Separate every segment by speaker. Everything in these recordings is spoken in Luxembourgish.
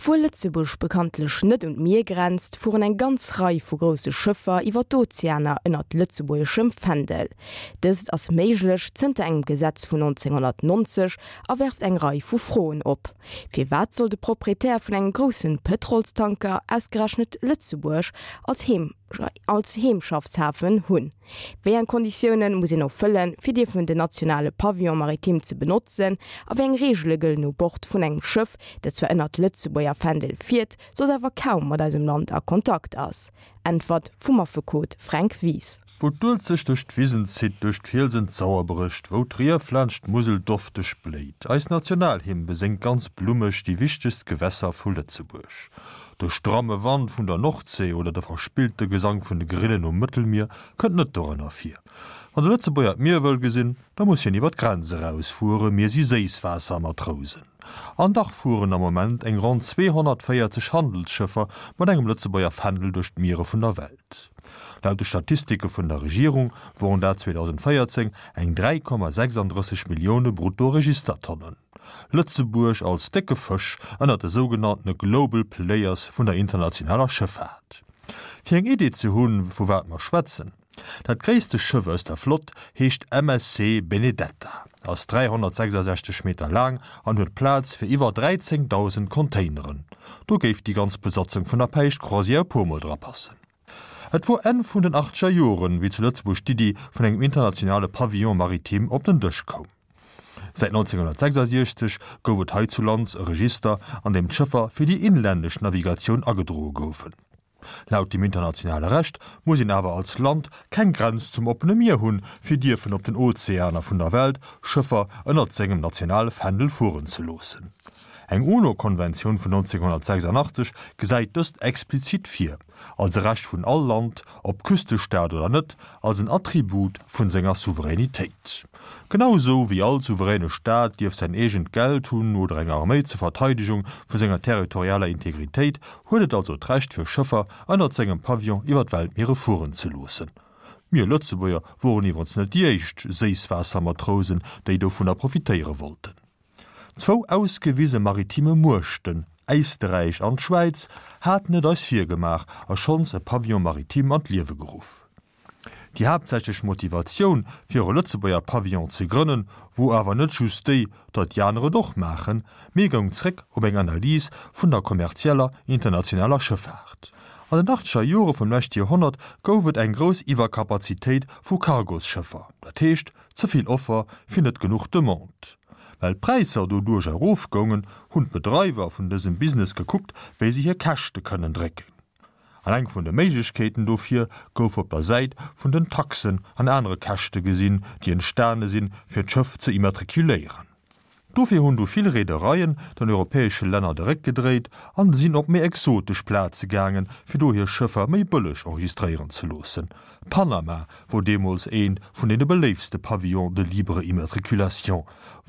Speaker 1: Obwuel Lëtzebuerg bekanntlech net un d'Mier grenzt, fueren eng ganz Rei vu grousse Schëffer iwwer d'Ozeaner ënnert lëtzebuergeschem Fändel. Dëst ass méiglech zënter engem Gesetz vun 1990 a werft eng Rei vu Froen op. Firwat soll de Proprietär vun engem groussen Pëtrolstanker ausgerechnet Lëtzebuerg als als Heemschaffshafen hunn? Wéi eng Konditioune muss een erfëllen, fir dierfen den nationale Pavillon maritime ze benotzen? A wéi eng Reegele gëllen u Bord vun engem Schëff, dat zwar ënnert Lëtzebuerger Fändel fiert, soss awer kaum mat eisem Land a Kontakt ass? Äntwert vum Affekot Fränk Wies.
Speaker 2: Wou d'Uelzecht duerch d'Wisen zitt, duerch d'Fielsen d'Sauer brécht, wou d'Rief laanscht d'Musel dofteg bléit. Eis Nationalhymn beséngt ganz blummeg déi wichtegst Gewässer vu Lëtzebuerg. De stramme Wand vun der Nordsee oder de verspillte Gesank vun de Grillen um Mëttelmier kënnt net dorënner vir. Wann de Lëtzebuerger d'Mier wëll gesinn, da muss hien iwwer d'Grenz erausfuere, mir si Séisswaassermatrousen. An dach fueren am Moment eng ronn 240 Handelsschëffer mat engem Lëtzebuerger Fändel duerch d'Miere vun der Welt. Laut de Statistike vun der Regierung woren dat 2014 eng 3,36 Millioune Brutto-Registertonnen. Lëtzebuerg als décke Fësch ënnert de sougenanntene Global Players vun der internationaler Schëffaart. Fir eng Idee ze hunn, vu wat mer schwätzen, Dat gréisste Schëff aus der Flott heescht MSC Benedetta, ass 366 Meter laang an huet Plaz fir iwwer 13.000 Containeren. Do géif déi ganz Besatzung vun der Päischtcroisière e puer Mol dra passen. Et wor Enn vun den achtzeger Joren, wéi zu Lëtzebuerg d'Iddi vun engem internationale Pavillon maritime op den Dësch koum. Säit 1966 gouf et heizulands e Register, an deem d'Schëffer fir déi inlännesch Navigatioun agedroe goufen. Laut dem internationale Recht muss een awer als Land keng Grenz zum oppene Mier hunn, fir dierfen op den Ozeaner vun der Welt Schëffer ënnert sengem nationale Fändel fueren ze loossen. Eng UNO-Konventioun vun 1986 gesäit dëst explizit vir, als e Recht vun all Land, ob Küstestaat oder net, als en Attribut vun senger Souveränitéit. Genau esou wéi all souveräne Staat dierf säin eegent Geld hunn oder eng Arméi zur Verteidegung vu senger territorialer Integritéit, huet et also d'Recht fir Schëffer ënnert sengem Pavillon iwwer d'Weltmiere fueren ze loossen. Mir Lëtzebuerger woren iwwerens net déi éischt Séisswaassermatrousen, déi dovunner profitéiere wollten. Zwou ausgewise maritime Muechten, Éisterräich an d'Schwäiz, haten et eis virgemaach a schonns e Pavillon maritime an d'Liewe geruff. Déi haaptsächlech Motivatioun, fir e Lëtzebuerger Pavillon ze grënnen, wor awer net just déi, datt déi aner et och maachen, mee goung zréck op eng Analys vun der kommerzieller internationaler Schëffaart. An den achtzeger Jore vum leschte Joerhonnert gouf et eng grouss Iwwerkapazitéit vu Cargosschëffer, dat heescht Ze vill Offer fir net genuch Demande. Well d'Präisser doduerch erofgoungen, hunn d'Bedreiwer vun dësem Business gekuckt, wéi se hir Käschte kënnen drécken. An eng vun de Méiglechkeeten dofir gouf op der Säit vun den Taxen an anere Käschte gesinn, déi entstane sinn, fir d'Schëff ze immatrikuléieren. Dofir hunn du vill Reedereien den europäesche Länner de Réck gedréit an sinn op méi exotesch Plaze gaangen, fir do hir Schëffer méi bëlleg enregistréieren ze loossen. Panama wor deemools eent vun deene beléiftste Pavillons de libre immatriculation,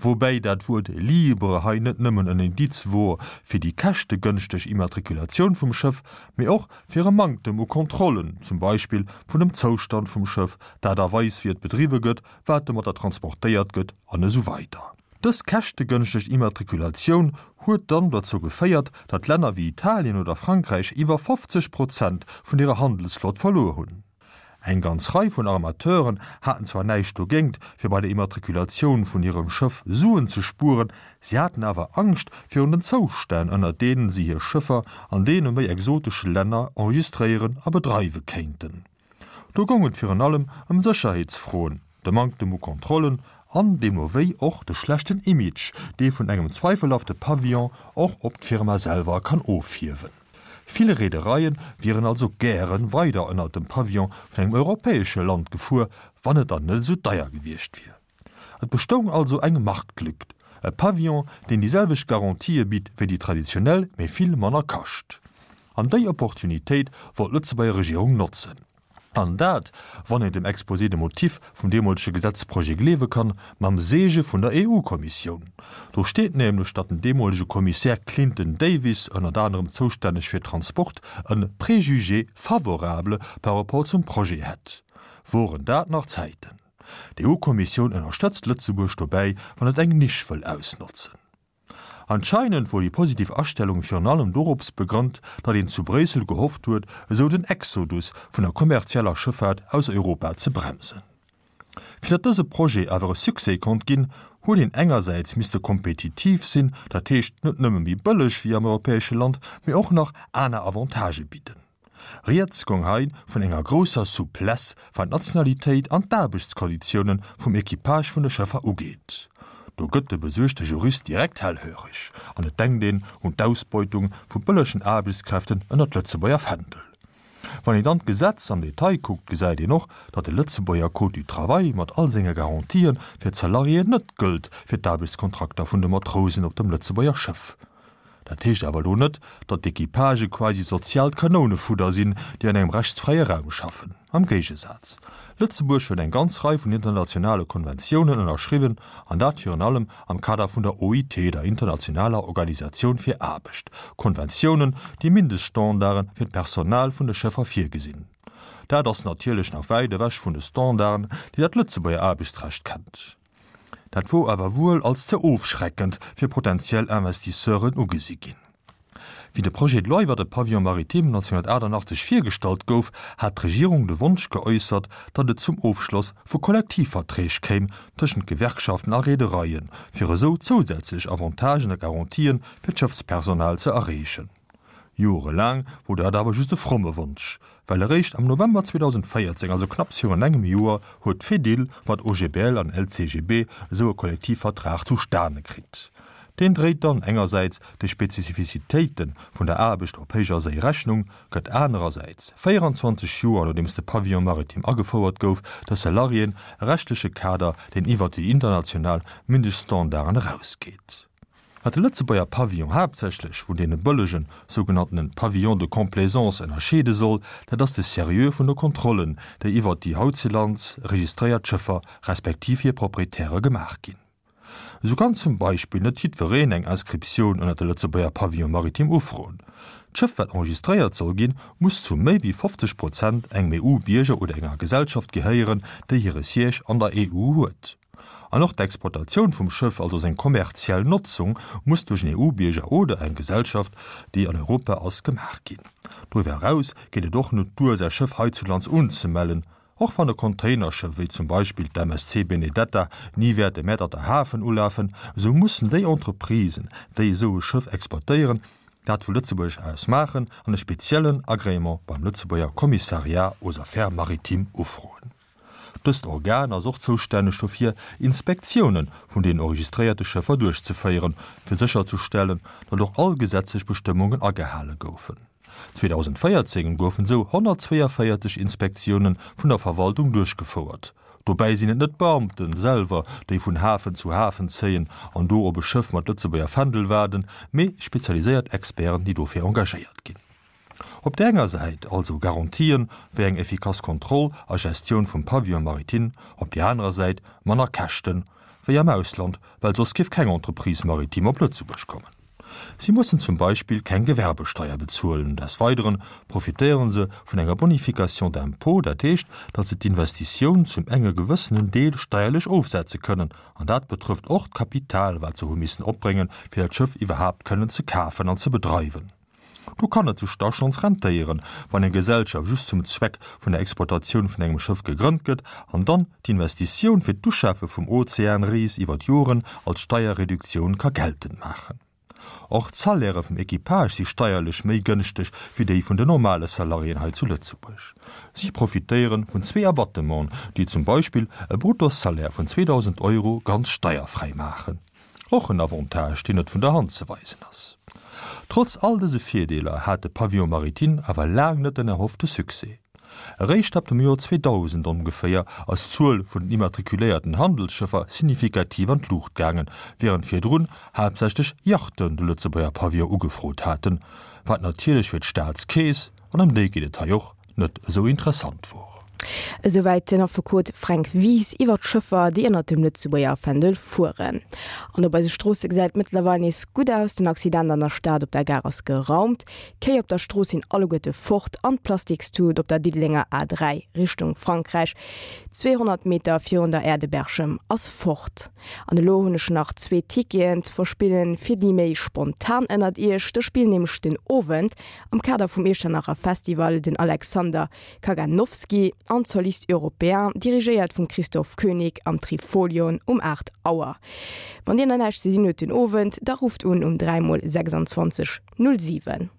Speaker 2: woubäi dat Wuert libre hei net nëmmen en Indiz wor fir déi käschtegënschteg Immatriculatioun vum Schëff, mee och fir e Manktem u Kontrollen, zum Beispill vun dem Zoustand vum Schëff, d'Aart a Weis wéi et bedriwwe gëtt, wat domatter transportéiert gëtt an esou weider. Dës käschtegënschteg Immatrikulatioun huet dann dozou geféiert, datt Länner wéi Italien oder Frankräich iwwer 50 Prozent vun hirer Handelsflott verluer hunn. Eng ganz Rei vun Armateuren haten zwar näischt dogéint, fir bei der Immatrikulatioun vun hirem Schëff Suen ze spueren, si haten awer Angscht virun den Zoustänn, ënner deenen si hir Schëffer an deene méi exotesche Länner enregistréieren a bedreiwe kéinten. Do goung et virun allem ëm Sécherheetsfroen, de Manktem u Kontrollen an deemno wéi och de schlechten Image, dee vun engem zweifelhafte Pavillon och op d'Firma selwer kann ofhiewen. Vill Reedereie wieren also gäre weider ënnert dem Pavillon vun engem europäesche Land gefuer, wann et dann net esou deier gewiescht wier. Et bestoung also eng Marktlück, e Pavillon, deen déi selwecht Garantië bitt wéi déi traditionell, mee vill manner kascht. An déi Opportunitéit wollt d'Lëtzebuerger Regierung notzen. An dat, wann een dem Exposé des motifs vum deemolege Gesetzprojet gleewe kann, mam Seege vun der EU-Kommissioun. Do steet nämlech, datt den deemolege Kommissär Clinton Davis, ënnert anerem zoustänneg fir Transport, e Préjugé favorable par rapport zum Projet hätt. Woren dat nach Zäiten! D'EU-Kommissioun ënnerstëtzt Lëtzebuerg dobäi, wann et eng Nisch wëll ausnotzen. Anscheinend wor déi positiv Astellung virun allem dorops begrënnt, datt een zu Bréissel gehofft huet, esou den Exodus vun der kommerzieller Schëffaart aus Europa ze bremsen. Fir datt dëse Projet awer e Succès konnt ginn, huet een engersäits misste kompetitiv sinn, dat heescht net nëmme méi bëlleg wéi am europäesche Land, mee och nach aner Avantagë bidden. Rieds gong hei vun enger grousser Souplesse wat d'Nationalitéit an d'Aarbechtskonditioune vum Equipage vun de Schëffer ugeet. Do gëtt de besuergte Jurist direkt hellhöreg an et denkt een un d'Ausbeutung vu bëllegen Aarbechtskräften ënnert Lëtzebuerger Fändel. Wann een dann d'Gesetz am Detail kuckt, gesäit een och, datt de Lëtzebuerger Code du travail mat all senge Garantië fir d'Salariéen net gëllt fir d'Aarbechtskontrakter vun de Matrousen op dem Lëtzebuerger Schëff. Dat heescht awer elo net, datt d'Equipagë quasi soziaalt Kanounefudder sinn, déi an engem rechtsfräie Raum schaffen. Am Géigesaz, Lëtzebuerg huet eng ganz Rei vun internationale Konventiounen ënnerschriwwen, an dat virun allem am Kader vun der OIT, der internationaler Organisatioun fir Aarbecht, Konventiounen, déi Mindeststandarde fir d'Personal vun de Schëffer virgesinn. Dat ass natierlech nach wäit ewech vun de Standarden, déi dat Lëtzebuerger Aarbechtsrecht kennt. Dat wor awer wuel als ze ofschreckend fir potentiell Investisseuren ugesi ginn. Wéi de Projet de loi iwwer de Pavillon maritime 1988 virgestallt gouf, hat d'Regierung de Wonsch geäussert, datt et zum Ofschloss vu Kollektivverträg kéim tëschent Gewerkschaften a Reedereien, fir esou zousätzlech Avantagen a Garantien fir d'Schëffspersonal ze erreechen. Jorelaang wor dat awer just e fromme Wonsch, well eréischt am November 2014, also knapps virun engem Joer, huet d'Fedil mat OGBL an LCGB esou e Kollektivvertrag zustane kritt. Deen dréit dann engersäits de Spezifizitéite vun der Aarbecht op héijer Séi Rechnung, gëtt anerersäits, 24 Joer nodeems de Pavillon maritime agefouert gouf, de Salariéen e rechtleche Kader, deen iwwert déi international Mindeststandarden erausgeet. Wat de Lëtzebuerger Pavillon haaptsächlech vun deene bëllegen, sougenanntenen Pavillons de complaisance ënnerscheede soll, dat ass de Seriö vun de Kontrollen, déi iwwert déi hautzelands registréiert Schëffer respektiv hir Proprietäre gemaach ginn. Esou kann zum Beispill net jiddwereen eng Inscriptioun ënner de Lëtzebuerger Pavillon maritime ufroen. D'Schëff wat enregistréiert soll ginn, muss zu méi wéi 50 Prozent engem EU-Bierger oder enger Gesellschaft gehéieren, déi hire Siège an der EU huet. An och d'Exploitatioun vum Schëff, also seng kommerziell Notzung, muss duerch en EU-Bierger oder eng Gesellschaft, déi an Europa ass, gemaach ginn. Doriwwer eraus geet et och net duer, säi Schëff heizulands unzemellen. Och wann e Containerschëff, wéi zum Beispill d'MSC Benedetta, ni wäert e Mäerterter Hafen ulafen, esou mussen déi Entreprisen, déi esou e Schëff exploitéieren, dat vu Lëtzebuerg aus maachen an e speziellen Agrément beim Lëtzebuerger Commissariat aux Affaires maritimes ufroen. Dëst Organ ass och zoustänneg dofir, Inspektiounen vun den enregistréierte Schëffer duerchzeféieren, fir sécherzestellen, datt och all gesetzlech Bestëmmungen agehale goufen. 2014 goufen esou 142 Inspektioune vun der Verwaltung duerchgefouert. Dobäi sinn et net d'Beamte selwer, déi vun Hafen zu Hafen zéien an do op e Schëff mat Lëtzebuerger Fändel waarden, mee spezialiséiert Experten, déi dofir engagéiert ginn. Op där enger Säit also Garantien wéi eng effikass Kontroll a Gestioun vum Pavillon maritime, op där anerer Säit manner Käschten wéi am Ausland, well soss géif keng Entreprise maritime op Lëtzebuerg kommen. Si mussen zum Beispill keng Gewerbesteier bezuelen. Des Weideren profitéiere se vun enger Bonification d'impôt, dat heescht, datt se d'Investitioun zum enge gewëssenen Deel steierlech ofsetze kënnen. An dat betrëfft och d'Kapital, wat se hu missen opbréngen, fir dat Schëff iwwerhaapt kënnen ze kafen an ze bedreiwen. Do kann et sech da schonns rentéieren, wann eng Gesellschaft just zum Zweck vun der Exploitatioun vun engem Schëff gegrënnt gëtt an dann d'Investitioun fir d'Uschafe vum Ozeanris iwwer d'Joren als Steierreduktioun ka geltend maachen. Och d'Salairë vum Equipage si steierlech méi gënschteg wéi déi vun den normale Salariéen hei zu Lëtzebuerg. Si profitéiere vun zwee Abattementen, déi zum Beispill e Bruttosalaire vun 2.000 Euro ganz steierfräi maachen. Och en Avantage, deen net vun der Hand ze weisen ass. Trotz all dëse Virdeeler hat de Pavillon maritime awer laang net den erhoffte Succès. Eréischt ab dem Joer 2000 ongeféier ass d'Zuel vun den immatrikuléierten Handelsschëffer signifikativ an d'Luucht gaangen, wärend virdrun haaptsächlech Yachten de Lëtzebuerger Pavillon ugefrot haten, wat natierlech fir d'Staatskeess, an ëm déi geet et hei och, net esou interessant wor.
Speaker 1: Esouwäit den Affekot Fränk Wies iwwer d'Schëffer, déi ënnert dem Lëtzebuerger Fändel fueren. An op eise Stroosse gesäit et mëttlerweil nees gutt aus. Den Accident an der Stad op der Gare ass geraumt, d'Kéi op der Strooss sinn alleguerte fort an d'Plastikstut op der Diddelenger A3 Richtung Frankräich, 200 Meter virun der Aire de Berchem, ass fort. An elo hunn ech nach zwee Ticketen ze verspillen fir déi méi spontan ënnert iech. Do spillen nämlech den Owend am Kader vum Iechternacher Festival den Alexander Kaganowski an d'Solistes Européens, dirigéiert vum Christoph König am Trifolion um 8 Auer. Wann dir nach näischt ze dinn hutt den Owend, da rufft un um 3 mol 26 07.